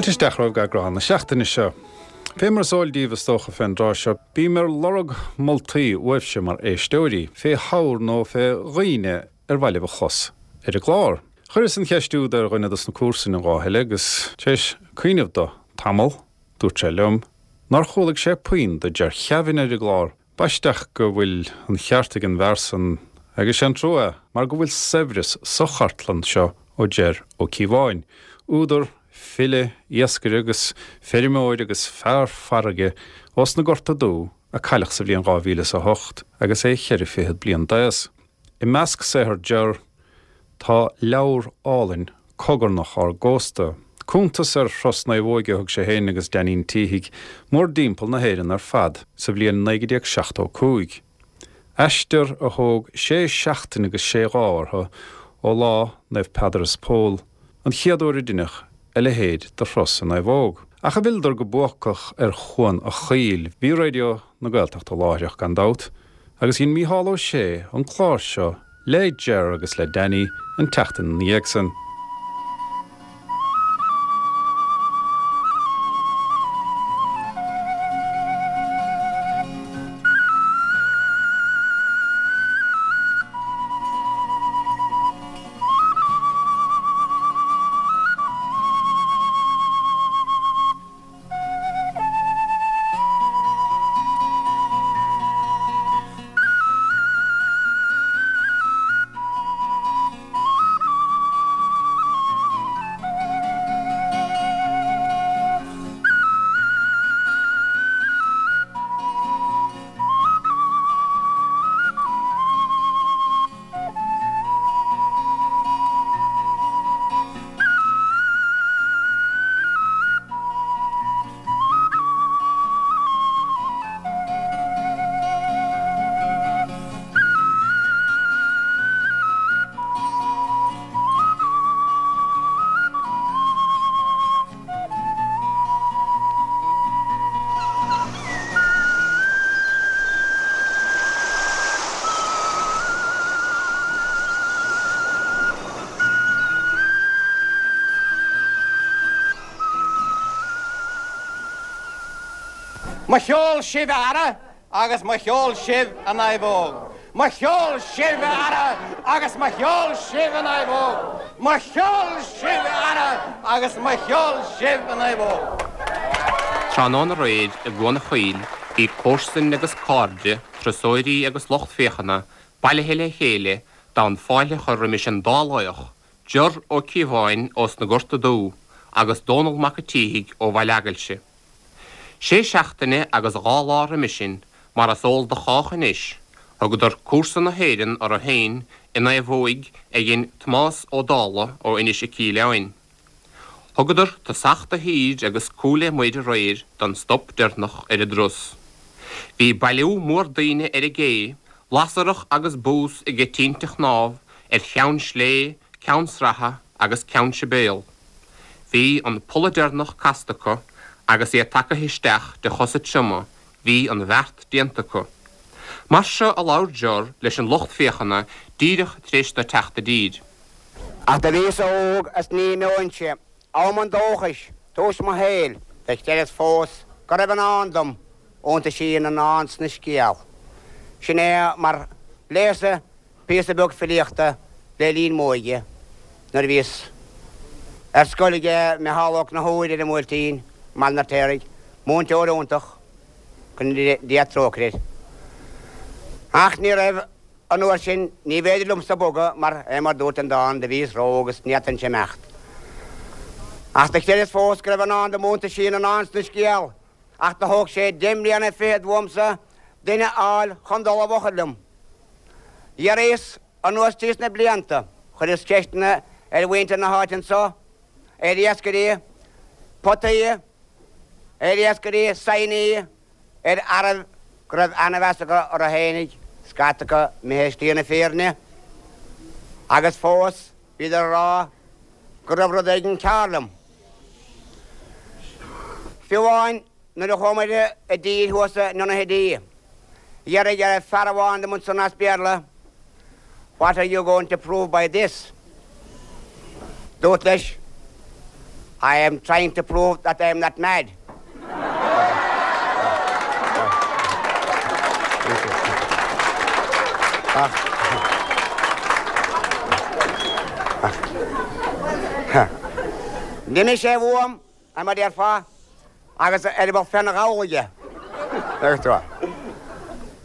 Fáilte isteach romhaibh go eagrán na seachtaine seo. Fé mar is eol daoibh is dócha fén dtráth seo, bím ar lorg moltaí uaibhse mar éisteoirí, fé shaothar nó fé dhaoine ar mhaith libh a chlos ar an gclár. Chuireas an cheist úd ar dhuine dos na comharsain an lá eile agus, tar éis cuimhneamh do tamall, dúirt sé liom nár chualaidh sé puinn do Ger Kevin ar an gclár. B'aisteach go bhfuil an cheart ag an bhfear san agus sé an trua é mar go bhfuil saibhreas sa chartlann seo ó Ger Ó Cíobháin, údar, file, iascaire agus feirmeoir agus fear farraige ós na Gorta Dubha a cailleadh sa bhliain 2008 agus é cheithre fichead bliain d'aos. I measc saothar Ger tá leabhar álainn Cogarnach ár gCósta, cuntas ar thuras naomhóige a thug sé féin agus Dainín Títhigh mórdtimpeall na hÉireann ar fad sa bhliain 1975. Aistear a thóg sé seachtaine agus sé lá orthu ó lá Naomh Peadar is Pól, an chéad uair a deineadh a leithéid de thuras i naomhóg. Ach a bhfilleadar go buacach ar Chuan a' Chaoil, bhí Raidió na Gaeltachta láithreach gan dabht, agus dhein Mícheál Ó Sé an clár seo le Ger agus le Danny an tseachtain ina dhiaidh san. Mo cheol sibh a fheara agus mo cheol sibh a naomhóg. Mo cheol sibh a fheara agus mo cheol sibh a naomhóg. Mo cheol sibh a fheara agus mo cheol sibh a naomhóg. Tráthnóna aréir i gCuan a' Chaoil bhí comharsain agus cairde, turasóirí agus lucht féachana bailithe le chéile d'fhonn fáilte a chur roimis an dá laoch, Ger Ó Cíobháin ós na Gorta Dubha agus Dónall Mac a' tSíthigh ó Bhaile Eagailse. Sé seachtaine agus dha lá roimis sin, mar is eol do chách anois, thugadar cúrsa na hÉireann orthu féin i naomhóig a dhein Tomás Ó Dálaigh ó Inis 'Ic Aoileáin. Thugadar tosach do thír agus cúl le muir aréir don stop deireanach ar a dturas. Bhí bailiú mór daoine ar an gcé, lasarach agus bús aige tinte chnámh ar Cheann Slé, Ceann Sratha agus Ceann Sibéal. Bhí an polla deireanach casta acu agus iad tagaithe isteach de chosa trioma, bhí an bheart déanta acu. Mar seo a labhair Ger leis an lucht féachana díreach tar éis dó teacht i dtír. Ach do bhíos óg is ní imeoinnse, am an dóchais, tús mo shaoil, do chreideas fós go raibh i ndán dom, iontaisí na ndán 's na scéal. Sin é mar léas-sa píosa beag filíochta le linn m'óige, nuair a bhíos ar scoil aige Micheál Ó Conchúir ar an mBuailtín, i mBaile an Fheirtéaraigh, múinteoir iontach, go ndéana Dia trócaire air. Ach ní raibh an uair sin, ní bhféidir liomsa bogadh mar é mar dúirt an dán, do bhíos ró-óg is ní fhéadfainnse imeacht. Ach do chreideas fós go raibh i ndán dom iontaisí na ndán 's na scéal, ach do thóg sé deich mbliana fichead uaimsa duine a fháil chun dul i bhfochair liom. Dh'fhiafraíos anuas tríos na blianta, chuireas ceisteanna ar mhuintir na háite anso, ar iascairí potaí, ar iascairí saighní, ar fhearaibh go raibh ana-mheas acu orthu fhéinig, scata acu imithe i slí na fírinne, agus fós bhíodar a rá go raibh rud éigin cearr liom. Fiú amháin nuair a chuamair i dtír thuas in Donaghadee, d'fhiafraigh fear amháin dom ansan as Béarla, What are you going to prove by this? Dúrt leis. I am trying to prove that I am not mad. D'imigh sé uaim, mar a déarfá, agus eireaball féna ghabhal aige.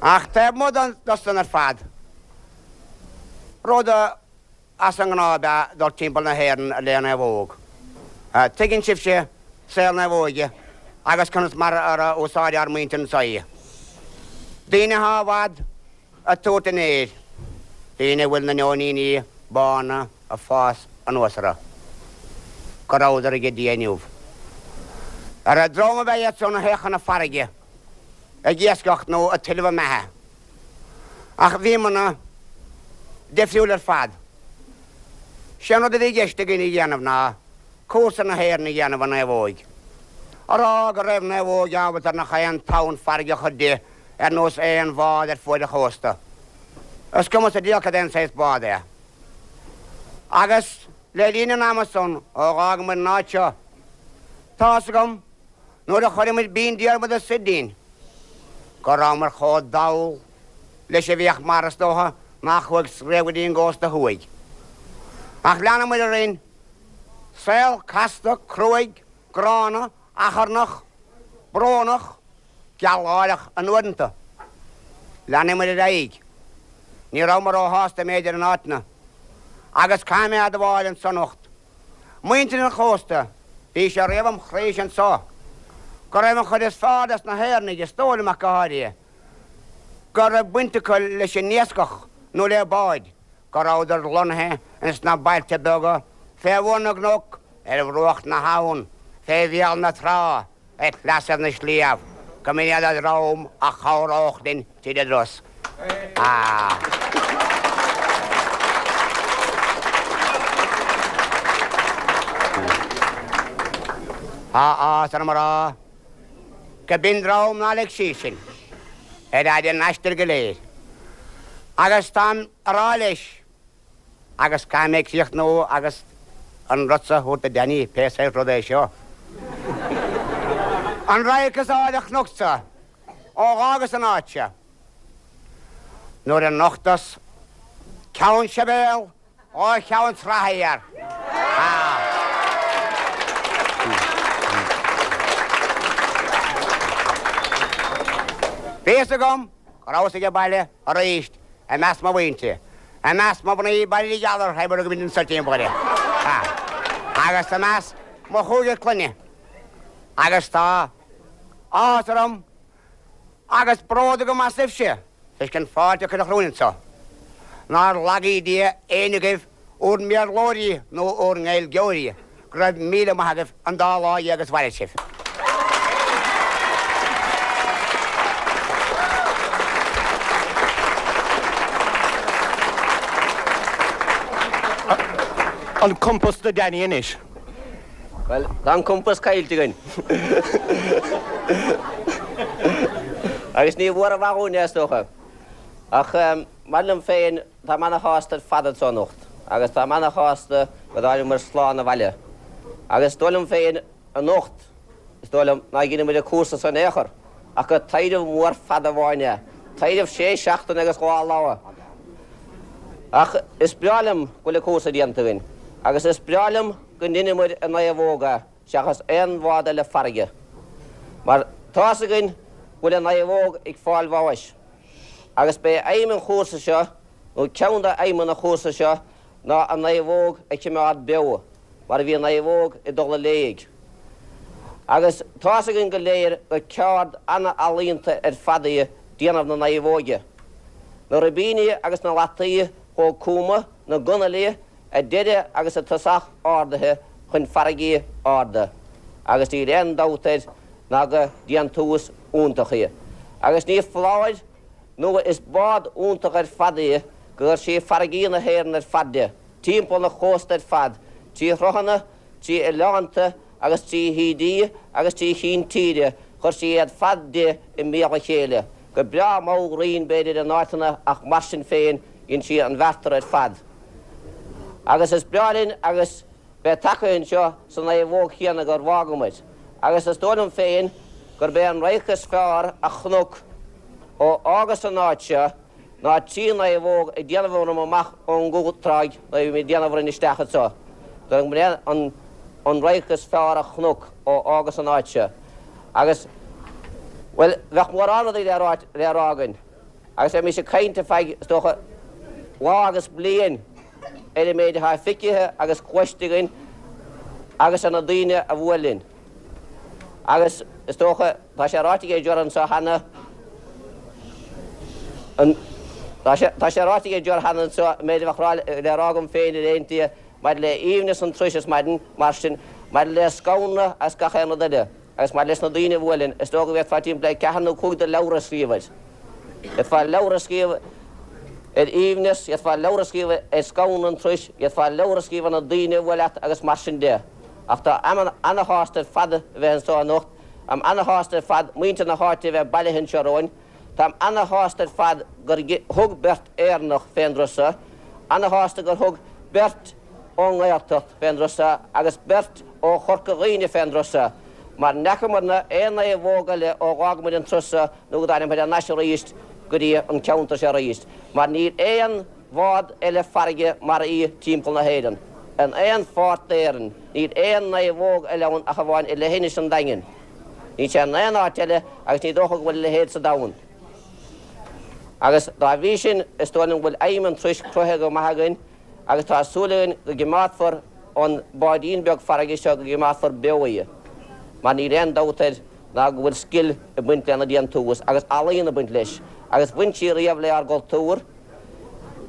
Ach taobh amuigh de san ar fad, rud a. As an ngnáth ab ea dul timpeall na hÉireann le naomhóg. Tuigeann sibhse saol naomhóige agus conas mar a úsáideadh ár muintir anso í. Daoine atá i bhfad ag tabhairt an fhéir, daoine a bhfuil na neoiníní bána ag fás anuas orthu, go rabhadar aige Dia inniu. Ar an dream ab ea iad san a théadh chun na farraige ag iascach nó ag tuilleamh a mbeatha. Ach bhíomarna difriúil ar fad. Sé an rud a bhí i gceist againn a dhéanamh ná cúrsa na hÉireann a dhéanamh i naomhóig. A rá go raibh naomhóig ábalta ar nach aon tonn farraige a chur di ar nós aon bhád ar fuaid an chósta. Is cuma sa diabhal cad é an saghas bád é. Agus le linn an ama san ó dh'fhágamair an áit seo, tá's agam, Nuair a chuireamair Binn Diarmada soir dínn, go rabhamar chomh dall leis a bhíodh mar, is dócha, nach chuaigh riamh go dtí an gcósta thuaidh. Ach leanamair orainn, saol casta, cruaidh, gránna, achrannach, brónach, gealgháireach in uaireanta. Leanamair ar aghaidh. Ní rabhamar róshásta, m'fhéidir, in áiteanna. Agus caithfidh mé a admháil anso anocht, Muintir an chósta, bhí sé riamh im chroíse anso go raibh an chuid is fearr des na hÉireannaigh, is dóigh liom ach go háirithe, go raibh baint acu leis an iascach nó le báid, go rabhadar lonnaithe ins na bailte beaga fé bhun na gcnoc, ar bhruach na habhann, fé bhéal na trá. Ar shleasaibh na sliabh, go mb'in iad an dream a chabhródh linn tríd an dturas. Tá áthas orm a rá go b'in dream nár lig síos sinn ar fhaid an aistir go léir. Agus táim a rá leis, Agus caithfidh mé críochnú agus an rud so a thabhairt do Danny, pé saghas rud é seo. An radharc is áille a chonacsa ó dh'fhágas an áit seo, nuair a nochtas Ceann Sibéal ó Cheann Sraithe Thiar. Bhí fhios agam go rabhas age baile arís i measc mo mhuintire, i measc mo mhnaoi bail gheal orthu mura gcuimhin an timpeall uirthi, agus i measc mo chúigear clainne, agus tá áthas orm agus bród agam asaibhse, toisc an fáilte a cuireadh romhainn anso. Nár lagaí Dia éinne agaibh, úr mBéarlóirí nó úr nGaeilgeoirí, go raibh míle maith agaibh an dá lá dhéag is mhair sibh. An compás do Danny anois. Bhuel, tá an compás caillte againn. Agus ní mhór an mhaith dhúinn é, is dócha. Ach mar liom féin, Táim ana-shásta ar fad anso anocht agus táim ana-shásta go dtáinig muid slán abhaile. Agus is dóigh liom féin anocht, is dóigh liom, ná dheineamair an cúrsa so in aon chor ach gur taidhreamh mór fada amháin é, taidhreamh sé seachtaine agus dhá lá. Ach is breá liom go bhfuil an cúrsa déanta againn agus is breá liom go ndeineamair i naomhóg é seachas aon bhád eile farraige. Mar tá's againn go bhfuil an naomhóg ag fáil bháis. Agus b'é aidhm an chúrsa seo, nó ceann de aidhmeanna an chúrsa seo, ná an naomhóg a chimeád beo, mar bhí an naomhóg ag dul i léig. Agus tá's againn go léir gur ceárd ana-ealaíonta ar fad í déanamh na naomhóige. Na ribíní agus na lataí chomh cúma, na gunailí, a deireadh agus a tosach ardaithe chun farraigí arda, agus níl aon dabht air ná gur déantús iontach í. Agus ní foláir nó is bád iontach ar fad í gur chuir sí farraigí na hÉireann ar fad di, timpeall an chósta ar fad, trí shruthanna, trí oileánta agus trí thaoidí agus trí chinn tíre, chuir sí iad fad di i mbéal a chéile, go breá mall righin b'fhéidir in áiteanna ach mar sin féin dhein sí an bheartar ar fad. Agus is breá linn agus. bheith tagtha anseo sa naomhóg chéanna gur bhfágamair, agus is dóigh liom féin gurb é an radharc is fearr a chonac ó fhágas an áit seo ná trí naomhóg ag déanamh orm amach ón gcúltráigh nuair a bhí mé ag déanamh orainn isteach anseo. Dóigh liom gurb é an an radharc is fearr a chonac ó fhágas an áit seo. Agus, bhuel, bheadh mórán rudaí le rá le rá againn. Agus bheimis ag caint ar feadh, is dócha, lá agus bliain ar an méid atá feicthe agus cloiste againn agus ar na daoine a bhuail linn. Agus, is dócha, tá sé ráite ag Ger anseo cheana, an, tá sé, tá sé ráite ag Ger cheana anseo an méid a bheadh le rá agam féin ar aon tslí maidir le haoibhneas an turais ar maidin, mar sin, maidir le Scanradh agus gach aon rud eile. Agus maidir leis na daoine a bhuail linn, is dócha go bhféadfá timpeall le ceathair nó cúig de leabhra a scríobh air. D'fhéadfá leabhar a scríobh ar aoibhneas, d'fhéadfá leabhar a scríobh ar scanradh an turais, d'fhéadfá leabhar a scríobh ar na daoine a bhuail leat agus mar sin de. Ach tá ana-shásta ar fad a bheith anseo anocht, táim ana-shásta ar fad muintir na háite a bheith bailithe anseo romhainn, táim ana-shásta ar fad gur thug beirt Éireannach fén dturas seo, ana-shásta gur thug beirt ón nGaeltacht fén dturas seo agus beirt ó Chorca Dhuibhne fén dturas seo, mar n'fheacamarna aon naomhóg eile ó dh'fhág muid an turas seo nó go dtáinig muid thar n-ais aríst go dtí an ceantar seo aríst, mar níl aon bhád eile farraige mar í timpeall na hÉireann. In aon pháirt d'Éirinn, níl aon naomhóg eile ann ach amháin i leithinis an Daingin. Níl sé in aon áit eile agus ní dócha go bhfuil a leithéid sa domhan. Agus dá bhrí sin, is dóigh liom go bhfuil aidhm an turais cruthaithe go maith againn, agus tá súil againn go gcimeádfar an báidín beag farraige seo, go gcimeádfar beo í, mar níl aon dabht air ná go bhfuil scil ag baint lena déantús agus ealaíon ag baint leis, agus bhain sí riamh le ár gcultúr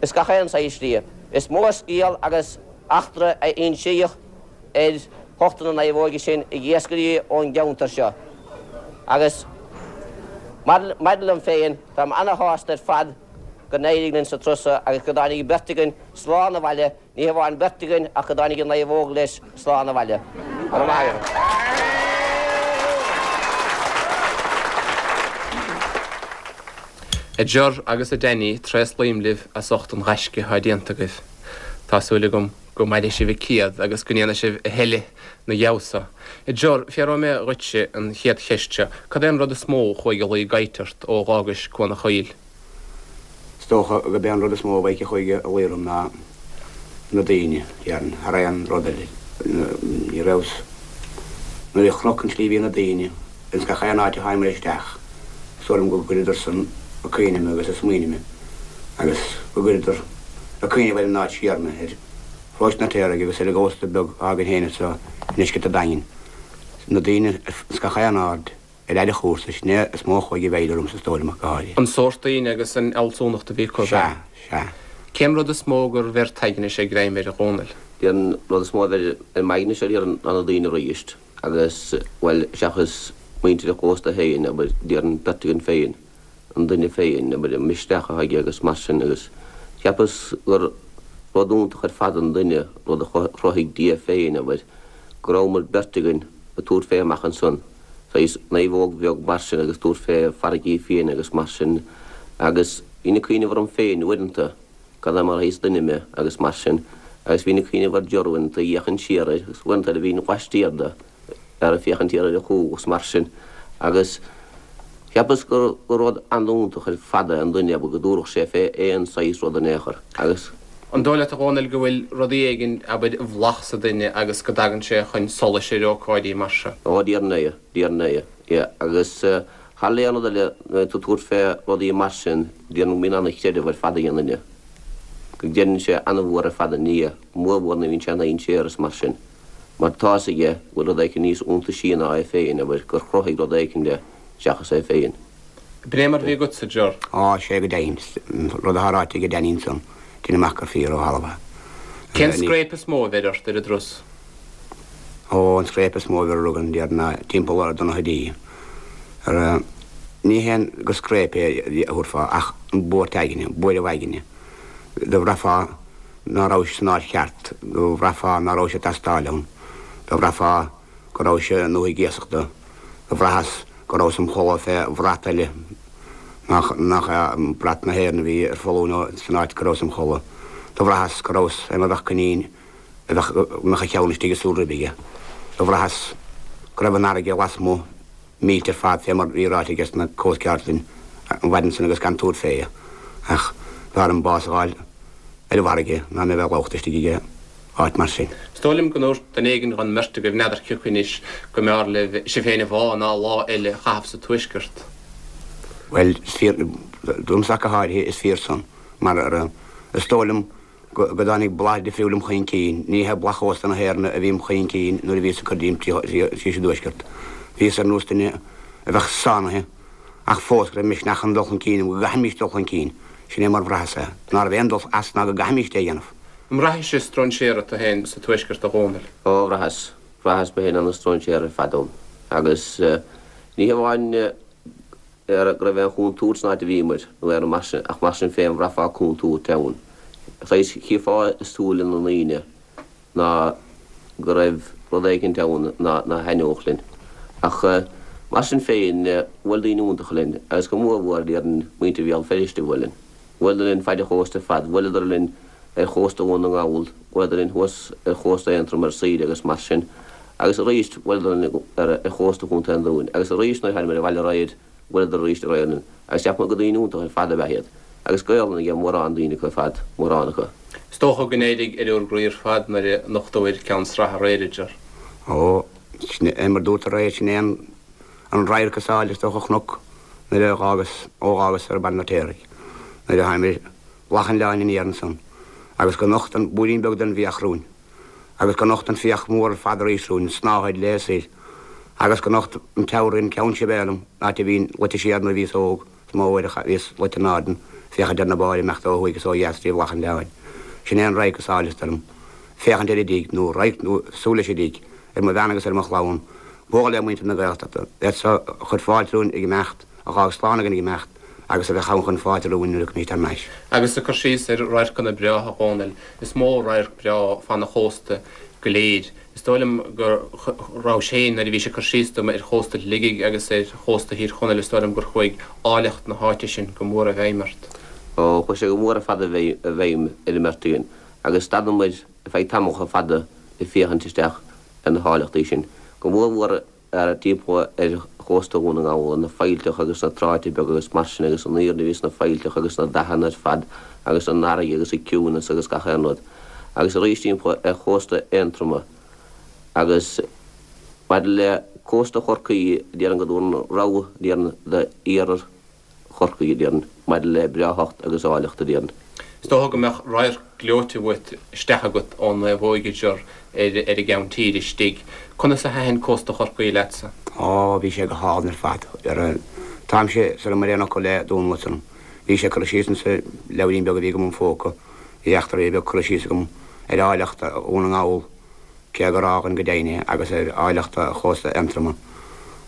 is gach aon saghas slí. Is mó scéal agus eachtra a insíodh ar ucht na naomhóige sin ag iascairí ón gceantar seo, agus maidir liom féin, táim ana-shásta ar fad go n-éirigh linn sa turas seo agus go dtáinig beirt againn slán abhaile, ní hamháin beirt againn ach go dtáinig an naomhóg leis slán abhaile. Go raibh maith agat. A Ger agus a Danny, tréaslaím libh as ucht an ghaisce atá déanta agaibh. Tá súil agam go mairfidh sibh an céad agus go ndéanfaidh sibh a thuilleadh 'na dhiaidh so. A Ger, fiafróidh mé dhuitse an chéad cheist seo, cad é an rud is mó a chuaigh a luí i gcaidht ort ó dh'fhágais Cuan a' Choill? Is dócha gurb é an rud is mó a bheidh a chuaigh a luí orm ná na daoine, déarfainn, thar aon rud eile. Ní rabhas, nuair a chonac an tslí a bhí na daoine ins gach aon áit a tháinig muid isteach, is dóigh liom go gcuireadar san ag cuimhneamh mé agus ag smaoineamh mé agus go gcuireadar ag cuimhneamh ar an áit siar mé, ar Pharóiste an Fheartaigh agus ar an gcósta beag atá againn féin anseo i ndeisceart an Daingin. Na daoine ins gach aon aird. Ar fhad an chúrsa, sin é is mó a chuaigh i bhfeidhm ormsa is dóigh liom ach go háirithe. An sórt daoine agus an fhealsúnacht a bhí acu. Sea, sea. Cén rud is mó gur bheir t'aigne-se greim air, a Dhónaill? An rud is mó a bheir ar m'aigne-se déarfainn ná na daoine aríst agus, bhuel, seachas muintir an chósta féin, abair, déarfainn beirt againn féin, an duine féin, abair, an misneach atá aige agus mar sin agus cheapas gur rud iontach ar fad an duine, rud a chruthaigh Dia féin, abair, go rabhamar beirt againn ag tabhairt fé amach ansan. saghas naomhóg bheag mar sin agus tabhairt fé farraigí fiaine agus mar sin agus bhínn ag cuimhneamh orm féin uaireanta cad é mar shaghas duine mé agus mar sin agus bhínn ag cuimhneamh ar Ger uaireanta ag féachaint siar air agus uaireanta eile bhínn laistiar de ar ag féachaint siar ar a chúl agus mar sin agus cheapas gur gur rud an-iontach ar fad é an duine abair go dtabharfadh sé fé aon saghas rud in aon chor agus An dóigh leat, a Dhónaill, go bhfuil rudaí éigin, abair, i bhfolach sa duine agus go dtagann sé chun solais ar ócáidí mar seo? Ó, déarfainn é, déarfainn é, yeah. Agus thar le aon rud eile, nuair atá tú ag tabhairt fé rudaí mar sin, déarfainn go mbíonn ana-chreideamh ar fad ag an duine. Go gcreideann sé ana-mhór ar fad i nDia, mórmhór nuair a bhíonn sé i ndainséar is mar sin. Mar tá's aige go bhfuil rud éicint níos iontaisí ná é féin, abair, gur chruthaigh rud éicint é seachas é féin. B'in é mar a bhí agatsa, a Ger. Á, sé go deimhin, an rud atá ráite ag Danny ansan, deinim amach gur fíor ó thalamh é. Cén scréip is mó a bheir ort ar an dturas? Ó, an scréip is mó a bheir orainn, déarfainn, ná timpeall ar Donaghadee. Ar, ní haon gur scréip é a thabharfá ach an buairt aigne, buaireamh aigne. Do bhraithfeá ná rabhais san áit cheart, do bhraithfeá ná rabhais ag teastáil ann, do bhraithfeá go rabhais i ndúthaigh iasachta, do bhraitheas go rabhas im chodladh fé bhrat eile nach nach é brat na hÉireann a bhí ar foluain san áit go rabhas im chodladh. Do bhraitheas go rabhas fé mar bheadh coinín. A bheadh, go mbeadh a cheann istigh i súil ribe aige. Do bhraitheas go raibh an fharraige lasmuigh millte ar fad fé mar bhí ráite aige sna Coast Guards linn an mhaidin san agus gan tabhairt fé. Ach b'fhearr dom bás a fháil ar an bhfarraige ná mé bheith lúbtha istigh aige áit mar sin. Is dóigh liom go ndúirt duine éigin dhon mbeirt agaibh, n'fheadar cioca anois, go mb'fhearr libh sibh féin a bhá ná lá eile a chaitheamh sa Tuaisceart. Bhuel, is fíor, domsa ach go háirithe, is fíor san, mar is dóigh liom go dtáinig blas difriúil im chuing cinn. Ní hé blas chósta na hÉireann a bhí im chuing cinn nuair a bhíos ag cur díom síos i dTuaisceart. Bhíos ar nós duine a bheadh sáinnithe ach fós go raibh misneach chun dul chun cinn agam, go gcaithfimís dul chun cinn. Sin é mar bhraitheas é. Ná raibh aon dul as ná go gcaithfimís é a dhéanamh. An mbraithis stróinséara tú féin sa Tuaisceart, a Dhónaill? Ó, bhraitheas. Bhraitheas mé féin ana-stróinséara ar fad ann. Agus ní hamháin go raibh aon chontúirt san áit a bhíomair, nó aon rud mar sin, ach mar sin féin bhraithfeá contúirt ann. Saghas, chífeá i súile na ndaoine ná go raibh rud éicint ann ná thaitneodh linn. Ach mar sin féin, bhuail daoine iontacha linn, agus go mór mhór, déarfainn, muintir Bhéal Feirste a bhuail linn. Bhuaileadar linn faid an chósta ar fad, bhuaileadar linn ar chósta Dhún na nGall, bhuaileadar linn thuas ar chósta Aontroma ar saoire agus mar sin, agus arís bhuaileadar linn ar chósta Chontae an Dúin, agus arís nuair a thánamair abhaile aréir, bhuaileadar arís aréir linn, agus cheap mé gur daoine iontacha ar fad ab ea iad, agus Gaolainn ag mórán daoine acu ar fad, mórán acu. Is dócha go n-éirigh ar bhur gcroí ar fad nuair a nochtabhair Ceann Sraith aréir, a Ger. Ó, sin é mar dúrt aréir, sin é an. An radharc is áille is dócha a chonac nuair a dh'fhágas, ó dh'fhágas ar Baile an Fheirtéaraigh, nuair a thánamair Bealach an Oileáin aniar ansan, agus go nocht an búirín beag den bhfiach romhainn, agus go nocht an fiach mór ar fad arís romhainn, an tsnáthaid léi soir, agus go nocht an teorainn Ceann Sibéal dom, an áit a bhínn luite siar nuair a bhíos óg, is mó uair a bhíos luite in airde, féachaint ar na báid ag imeacht ó thuaidh is ó dheas trí Bhealach an Oileáin. Sin é an radharc is áille is dóigh liom. Féachaint ar an dtigh, nó radharc nó súil leis an dtigh, ar mo bhean agus ar mo chlann, bualadh le muintir na Gaeltachta, iad so a chuir fáilte romhainn ag imeacht, a dh'fhág slán againn ag imeacht, agus a bheadh ann chun fáilte romhainn nuair a thiocfaimís thar n-ais. Agus ag cur síos ar radharcanna breátha, a Dhónaill, is mó radharc breá fan an chósta go léir. Is dóigh liom go rabhais féin, nuair a bhís ag cur síos dom ar chósta Shligigh agus ar chósta Thír Chonaill, is dóigh liom gur chuaigh áilleacht na háite sin go mór i bhfeidhm ort. Ó, chuaigh sé go mór ar fad i bhfeidhm ar an mbeirt againn, agus stadamair ar feadh tamall fada ag féachaint isteach ar na háilleachtaí sin, go mór mhór timpeall ar chósta Dhún na nGall, na faillteacha agus na tráite beaga agus mar sin agus an aoirne a bhí sna faillteacha agus na dathanna ar fad agus an fharraige agus an ciúnas agus gach aon rud. Agus arís timpeall ar chósta Aontroma agus maidir le cósta Chorcaí, déarfainn go dtabharfainn rogha, déarfainn, d'iarthar Chorcaí, a déarfainn, maidir le breáthacht agus áilleacht, a déarfainn. Is dócha go mbeadh radharc gleoite uait isteach agat ón Naomhóig, a Ger, ar an gceann tíre istigh. Conas a thaitin cósta Chorcaí leatsa? Ó, bhí sé go hálainn ar fad. Táimse sar ar aon fhocal le Dónal ansan. Bhí sé curtha síos insa leabhairín beag a bhí agam im phóca. Bhí eachtra beag curtha síos agam ar áilleacht Dhún na nGall, cé gur fhágainn go deimhin é, agus ar áilleacht chósta Aontroma.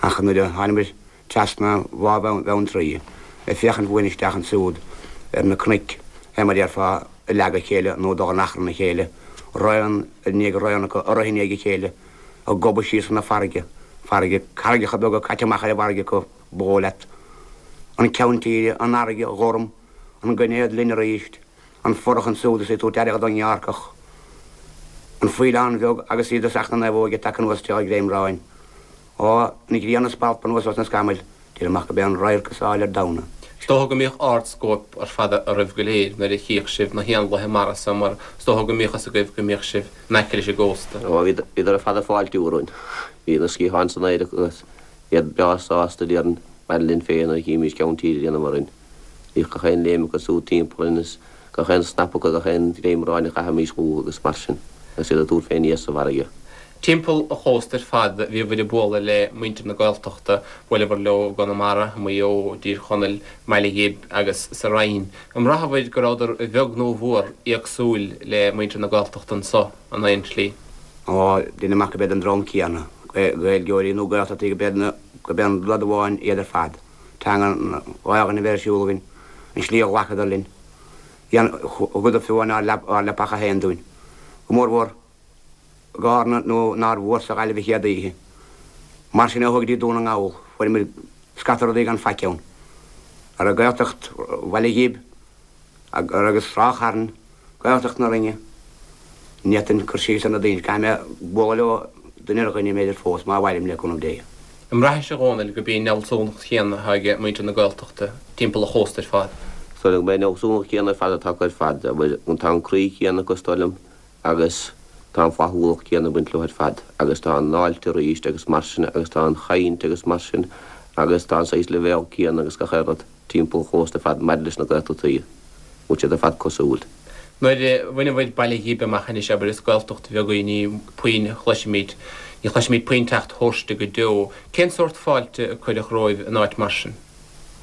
Ach nuair a thánamair trasna Bhá Bheanntraí, ag féachaint uainn isteach ansúd ar na cnoic, fé mar a déarfá, ag leagadh a chéile nó ag dul in achrann a chéile, raon i ndiaidh raon acu, ag rith i ndiaidh a chéile, ag gobadh síos chun na farraige, farraige, carraigeacha beaga caite amach ar an bhfarraige acu, ba dhóigh leat. An ceann tíre, an fharraige ghorm, an gainéad linn aríst, an forrach ansúd is í ag tabhairt aire don ghearrcach, an faoileán bheag agus í i dtosach na naomhóige tagtha anuas isteach ar ghreimráin. Ó, an ghrian ag spalpadh anuas os na scamaill, deirim ach gurb é an radharc is áille ar domhan é. Is dócha go mbíodh ard-scóip ar fad oraibh go léir nuair a chíodh sibh na héanlaithe mara so mar is dócha go mbíodh fhios agaibh go mbíodh sibh in aice leis an gcósta. Ó, bhíodar ar fad ag fáiltiú orainn. Bhí na sciatháin san aer acu agus iad breá sásta, déarfainn, maidir linn féin nuair a chímís ceann tíre ag déanamh orainn. Bhíodh gach aon léim acu siúd timpeall orainn is gach aon snap acu, gach aon ghreimráin a chaithimís chucu agus mar sin, agus iad ag tabhairt fé aníos sa bhfarraige. Timpeall an chósta ar fad bhíobhair ag bualadh le muintir na Gaeltachta, bhuaileabhair leo i gConamara, i Maigh Eo, i dTír Chonaill, i mBaile Ghib agus sa Rinn. An mbraitheabhair go rabhadar a bheag nó a mhór éagsúil le muintir na Gaeltachta anso in aon tslí? Ó, deinim amach gurb iad an dream céanna, Gaeilgeoirí nó Gaeltachtaí, gurb é an rud amháin iad ar fad. Teanga an Ghaelainn a bheith ar siúl againn, an slí a ghlacadar linn. Thugadar fiú amháin ár leapacha féin dúinn. Go mórmhór i gCárna nó nár mhór sa Ghaillimh an chéad oíche. Mar sin ó thuaidh go dtí Dún na nGall, fuair muid scata rudaí gan faic ann. Ar an Gaeltacht Bhaile Ghib agus Ráth Chairn, Gaeltacht na Rinne. Ní fhéadfainn cur síos ar na daoine, caithfidh mé bualadh leo duine ar dhuine b'fhéidir fós, má mhairim, le cúnamh Dé. An mbraithis, a Dhónaill, gurb í an fhealsúnacht chéanna atá ag muintir na Gaeltachta timpeall an chósta ar fad? Is dóigh liom gurb é an fhealsúnacht chéanna ar fad atá acu ar fad. Tá an croí céanna acu, is dóigh liom, agus tá an flaithiúlacht chéanna ag baint leo ar fad, agus tá an fháilte arís agus mar sin, agus tá an chaint agus mar sin, agus tá an saghas leibhéal céanna agus gach aon rud. timpeall an chósta ar fad maidir leis na Gaeltachtaí, bhfuil siad ar fad cosúil. Nuair a bhaineabhair Baile Ghib amach anois, abair, is Gaeltacht bheag í, ní puinn a chloisimid, ní chloisimid puinn teacht thairsti go deo. Cén sórt fáilte a cuireadh romhaibh in áit mar sin?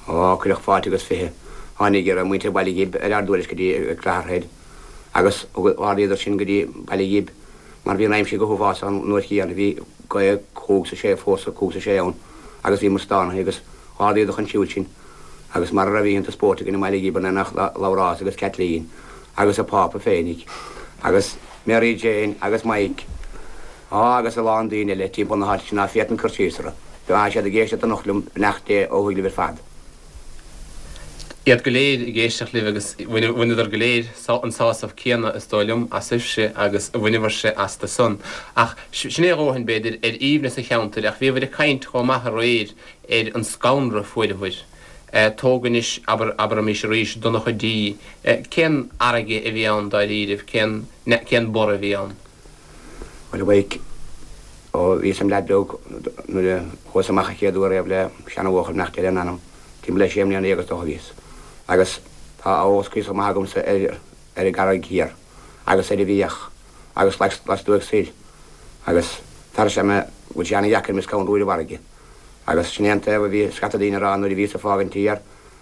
Ó, cuireadh fáilte agus 20. Tháinig ar muintir Bhaile Ghib ar ár dtuairisc go dtí Clogherhead agus ardaíodar sinn go dtí Baile Ghib mar bhí an aimsir go huafásach an uair chéanna, bhí gaoth cúig 's a sé, fórsa cúig 's a sé ann agus bhíomar stánaithe agus Ardaíodar chun siúil sinn, agus mara raibh oícheanta spóirt againn i mBaile Ghib in éineacht le Labhrás agus Caitlín agus a Pápa féinig, agus Mary Jane agus Mike, á agus a lán daoine eile timpeall na háite sin ná féadfainn cur síos orthu. Tá siad ag éisteacht anocht liom, beannacht Dé ó thuaidh libh ar fad. Iad go léir ag éisteacht libh agus bhaineadar go léir an sásamh céanna, is dóigh liom, asaibhse agus a bhaineabhairse astu san. Ach sin é a dhóthain, b'fhéidir, ar aoibhneas an cheantair, ach bhíobhair ag caint chomh maith aréir ar an scanradh a fuaireabhair. Tóg anois, abair, abraimis arís, Donncha D. Cén fharraige a bhí ann dáiríribh? Cén, cén borradh a bhí ann? Bhuel, a Mhaidhc, ó bhíos im leaid beag nuair a chuas amach an chéad uair riamh le seanabhuachaill, beannacht Dé lena anam, timpeall le sé mbliana dhéag is dócha a bhíos. Agus tá a eolas cuíosach maith agamsa ar, ar an gCarraig Thiar agus ar an bhFiach agus lastuaidh soir agus tar éis mé, go bhfuil sé ana-dheacair mé scanrú ar an bhfarraige. Agus sin é an taobh a bhí scata daoine a rá nuair a bhíos ag fágaint thiar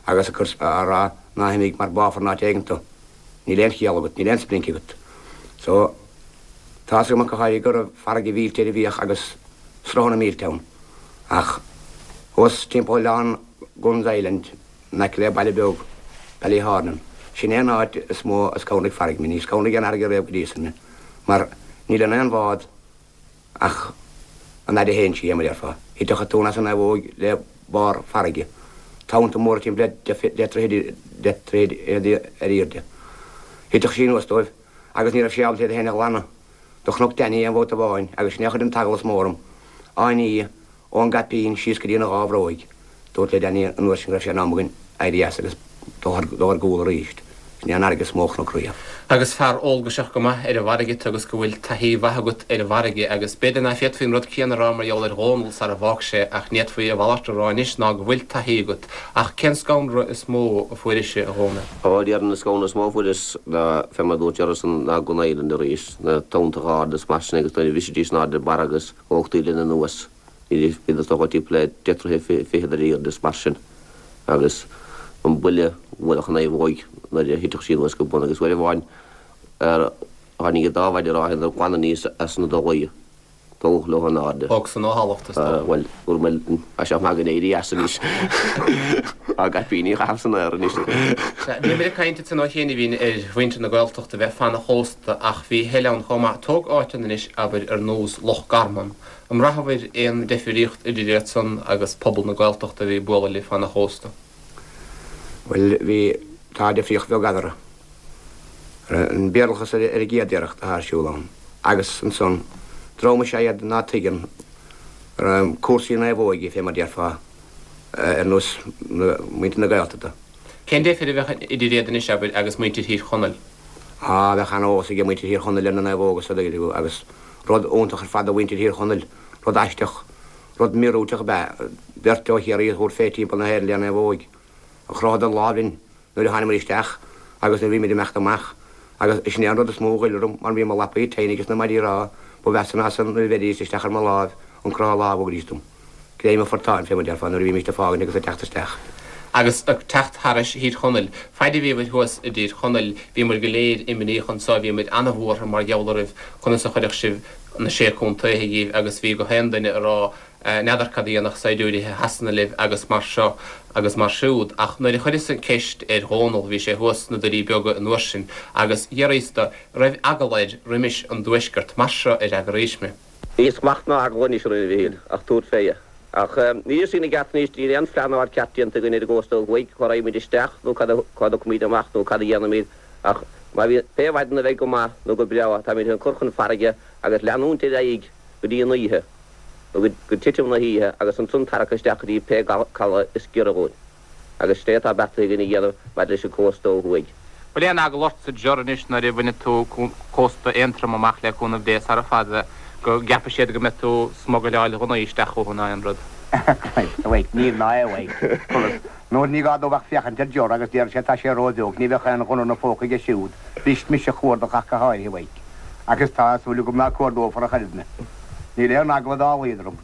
agus ag cur á rá ná himigh mar báfar in áit éigin tú. Níl aon chiall agat, níl aon splinc agat. So, tá's agam ach go háirithe go raibh farraige mhillte ar an bhFiach agus sruthanna millte ann. Ach thuas timpeall oileán Guns Island, in aice le baile beag Ballyhornan, sin é an áit is mó a scanraigh farraige mé. Ní scanraigh aon fharraige riamh go dtí san mé, mar níl in aon bhád Ach an fhaid a théann sí, mar a déarfá, thitfeadh an tonn as an naomhóig le barr farraige, tonnta móra timpeall le deich dtroithe ar airde. Thitfeadh sí anuas dóibh agus ní raibh sí ábalta iad féin a ghlanadh. Do chonac Danny aon bhabhta amháin agus sin é a chuir an t-eagla is mó orm, á ní ón gcaipín síos go dtína dhá bhróig. Dúrt le Danny an uair sin go raibh sé in am againn éirí as agus dul ar gcúl arís. Sin é an fharraige is mó a chonac riamh. Agus fear eolgaiseach go maith ar an bhfarraige tú agus go bhfuil taithí mhaith agat ar an bhfarraige agus b'fhéidir ná féadfaí an rud céanna a rá mar gheall ar Dhónall sara bhfág sé ach ní fhéadfaí a mhalairt a rá anois ná go bhfuil taithí agat. Ach cén scanradh is mó a fuairis, a Dhónaill? Ó, déarfainn an scanradh is mó a fuaireas ná fé mar a dúirt Geraldson ná Gun Island arís, na tonntacha arda is mar sin agus nuair a bhrisidís in airde barra agus thógtaí linn anuas. Bhíodar is dócha timpeall le deich dtroithe fichead ar airde is mar sin agus an buille a bhuailfeadh an naomhóig nuair a thitfeadh sí anuas go bun agus uair amháin tháinig an dá mhaide ráithe inar glanadh aníos as na dolaí tógadh leo in airde. Thóg san ó thalamh is dócha. Bhuel, dúirt mé tá sé maith againn éirí as anois. Ár gcaipíní a chaitheamh san aer anois. Sea, bhíomar ag caint ansan ó chianaibhín ar mhuintir na Gaeltachta bheith fan an chósta ach bhí a thuilleadh ann chomh maith. Tóg áiteanna anois, abair, ar nós Loch Garman. An mbraitheabhair aon deifríocht idir iad san agus pobal na Gaeltachta a bhí ag bualadh libh fan an chósta? Bhuel, bhí, tá difríocht bheag eadarthu. An Béarlachas ar an gcéad iarracht atá ar siúl ann. Agus ansan, dream is ea iad ná tuigeann cúrsaí naomhóige, fé mar déarfá, ar nós muintir na Gaeltachta. Cén deifir a bheadh idir iad anois, abair, agus muintir Thír Chonaill? Á, bheadh an-eolas age muintir Thír Chonaill ar na naomhóga sa dtaobh agus rud iontach ar fad do mhuintir Thír Chonaill, rud aisteach, rud míorúilteach ab ea beirt ó Chiarraí a thabhairt fé timpeall na hÉireann le naomhóig. Chrothadar lámh linn nuair a thánamair isteach agus nuair a bhímid ag imeacht amach agus sin é an rud is mó a ghoill orm mar bhí mo lapaí tinn ages na maidí ráithe ba mheasa ná san nuair a bheiridís isteach ar mo láimh an croitheadh lámh a thugaidís dom. Greim an phortáin, fé mar déarfá, nuair a bhímíst ag fágaint agus ag teacht isteach. Agus ag teacht thairis Thír Chonaill. Faid a bhíobhair thuas i dTír Chonaill, bhíomair go léir imníoch anso, bhíomair ana-bhuartha mar gheall oraibh, conas a chuirfeadh sibh na Sé Contaetha dhíbh agus bhí gach aon duine ag rá n'fheadar cad a dhéanfadh saighdiúirithe Shasana libh agus mar seo agus mar siúd. Ach nuair a chuireas an ceist ar Dhónall, bhí sé thuas sna Doirí Beaga an uair sin, agus d'fhiafraíos do, raibh eagal air roimis an dTuaisceart, mar seo a fhreagraís mé. Níl smacht ná eagla anois orainn a Mhichíl, ach tabhairt fé. Ach níl a fhios againn i gceart anois, níl aon phleanáil ceart déanta againn ar an gcósta ó thuaidh, cá raghaimid isteach nó cá dtiocfaimid amach nó cad a dhéanfaimid ach. Má bhíonn pé mhaidin a bheidh go maith nó go breá táimid chun cur chun farraige agus leanúint ar aghaidh go dtí an oíche nó go titim na hoíche agus ansan tarrac isteach go dtí pé caladh is giorra dhúinn. Agus sin é atá beartaithe againn a dhéanamh maidir leis an cósta ó thuaidh. Bhfuil aon eagla ortsa Ger anois nuair a bhainfidh tú cósta Aontroma amach le cúnamh Dé sara fada go gceapfaidh siad go mbeidh tú smugairleáil ghunnaí isteach chucu ná aon rud? Christ awake, níl ná é awake. Conas? Nuair ní gá domh ach féachaint ar Ger agus déarfaidh sé tá sé ró-bheag, ní bheadh aon ghunna 'na phóca aige siúd, bhrist mise a chuardach ach go háirithe awake. Agus tá súil agam ná cuardófar ach oiread mé. Níl aon eagla dá laghad orm.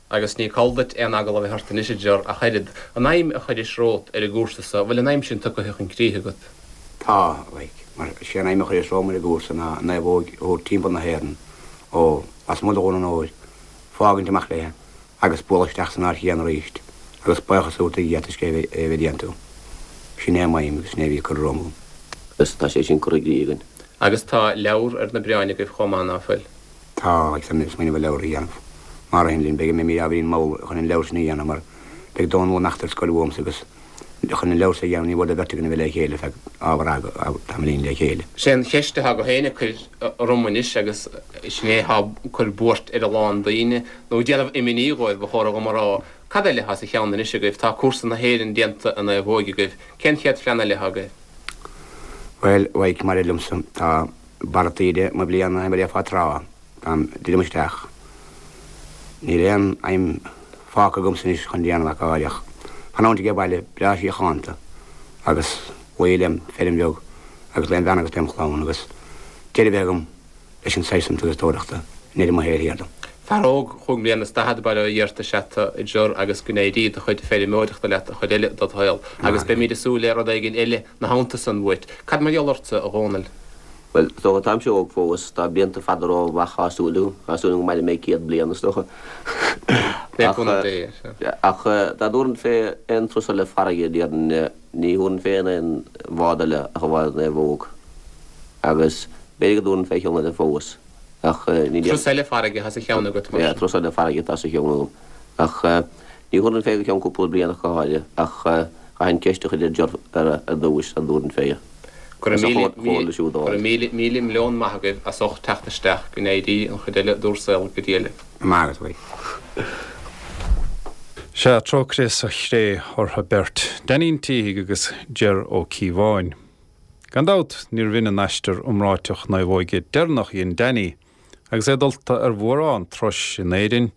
Agus ní call duit aon eagla a bheith ort anois, a Ger, ach oiread. An aidhm a chuiris romhat ar an gcúrsa so, bhfuil an aidhm sin tugtha chun críche agat? Tá, like. Mar sé an aidhm a chuireas romham ar an gcúrsa ná an naomhóig a thabhairt timpeall na hÉireann ó lasmuigh de Dhún an Óir, fágaint amach léi agus bualadh isteach san áit chéanna arís agus buíochas a thabhairt do Dhia toisc é a bheith déanta agam. Sin é m'aidhm agus sin é a bhí curtha romham agam. Agus tá sé sin curtha i gcrích againn. Agus tá leabhar ar na bioráin agaibh chomh maith, ná fuil? Tá, agus táimid ag smaoineamh ar leabhar a dhéanamh. Má ritheann linn, beidh mé ábhairín mall chun an leabhar sin a dhéanamh mar beidh Dónal ag imeacht ar scoil uaimse agus chun an leabhar sin a dhéanamh ní mór do bheirt againn a bheith le chéile feadh ábhar tamaillín le chéile. Sé an cheist atá gach éinne ag cur orm anois agus sin é atá ag cur buairt ar a lán daoine, nó ag déanamh imní dhóibh, ba chóra dhom a rá, cad eile atá sa cheann anois agaibh? Tá cúrsa na hÉireann déanta i naomhóig agaibh. Cén chéad phlean eile atá agaibh? Bhuel, like, mar a liomsa, tá. Barra taoide mo bhliana mar a déarfá tráth táim druidim isteach. Níl aon aidhm fágtha agamsa anois chun déanamh ach áireach fanúint age baile breá síochánta agus luí lem feirm bheag agus lem bhean agus lem chlann agus deireadh a bheith agam leis an saghas san turasóireachta i ndeireadh mo shaoil thiar dom. Fear óg chúig mbliana is daichead bail ó Dhia ort is ea tu, a Ger, agus go n-éirí do chuid feirmeoireachta leat an chuid eile dod shaol agus beimíd ag súil le rud éigin eile 'na theannta san uait. Cad mar gheall ortsa, a Dhónaill? Bhuel, is dócha, táimse óg fós, tá blianta fada romham amach, tá súil agam, tá súil agam go mairfidh mé 100 bliain, is dócha. Le cúnamh Dé, sea. Ach dá dtabharfainn fé aon turas eile farraige, déarfainn, ní thabharfainn fé aon bhád eile ach an bhád Naomhóg. Agus b'fhéidir go dtabharfainn fé cheann eile fós, ach ní. Turas eile farraige atá sa cheann agat, mar sin. Turas eile farraige atá sa cheann agam. Ach ní thabharfainn fé go ceann cúpla bliain ach go háirithe, ach chaithfinn ceist a chur ar Ger ar dtúis, sula dtabharfainn fé. Go raibh míle, míle milliún maith agaibh as ucht teacht isteach, go n-éirí an chuid eile d'bhur saol go diail. Maith agat, a Sea, trócaire sa chré orthu beirt, Danny an tSíthigh agus Ger Ó Cíobháin. Gan dabht, níorbh in an aistear iomráiteach naomhóige deireanach a dhein Danny agus é dulta ar mhórán turais in Éirinn,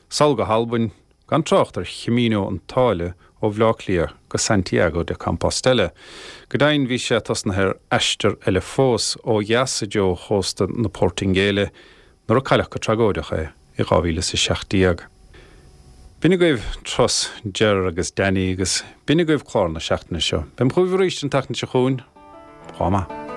sall go hAlbain, gan trácht ar Chamino an tSáile ó Bhleá Cliath go Santiago de Compostela. Go deimhin, bhí sé tosnaithe ar aistear eile fós, ó dheas i dtreo chósta na Portaingéile, nuair a cailleadh go tragóideach é i 2017. B'in agaibh turas Ger agus Danny agus b'in agaibh clár na seachtaine seo. Beim chugaibh arís an tseachtain seo chugainn. Chomh maith.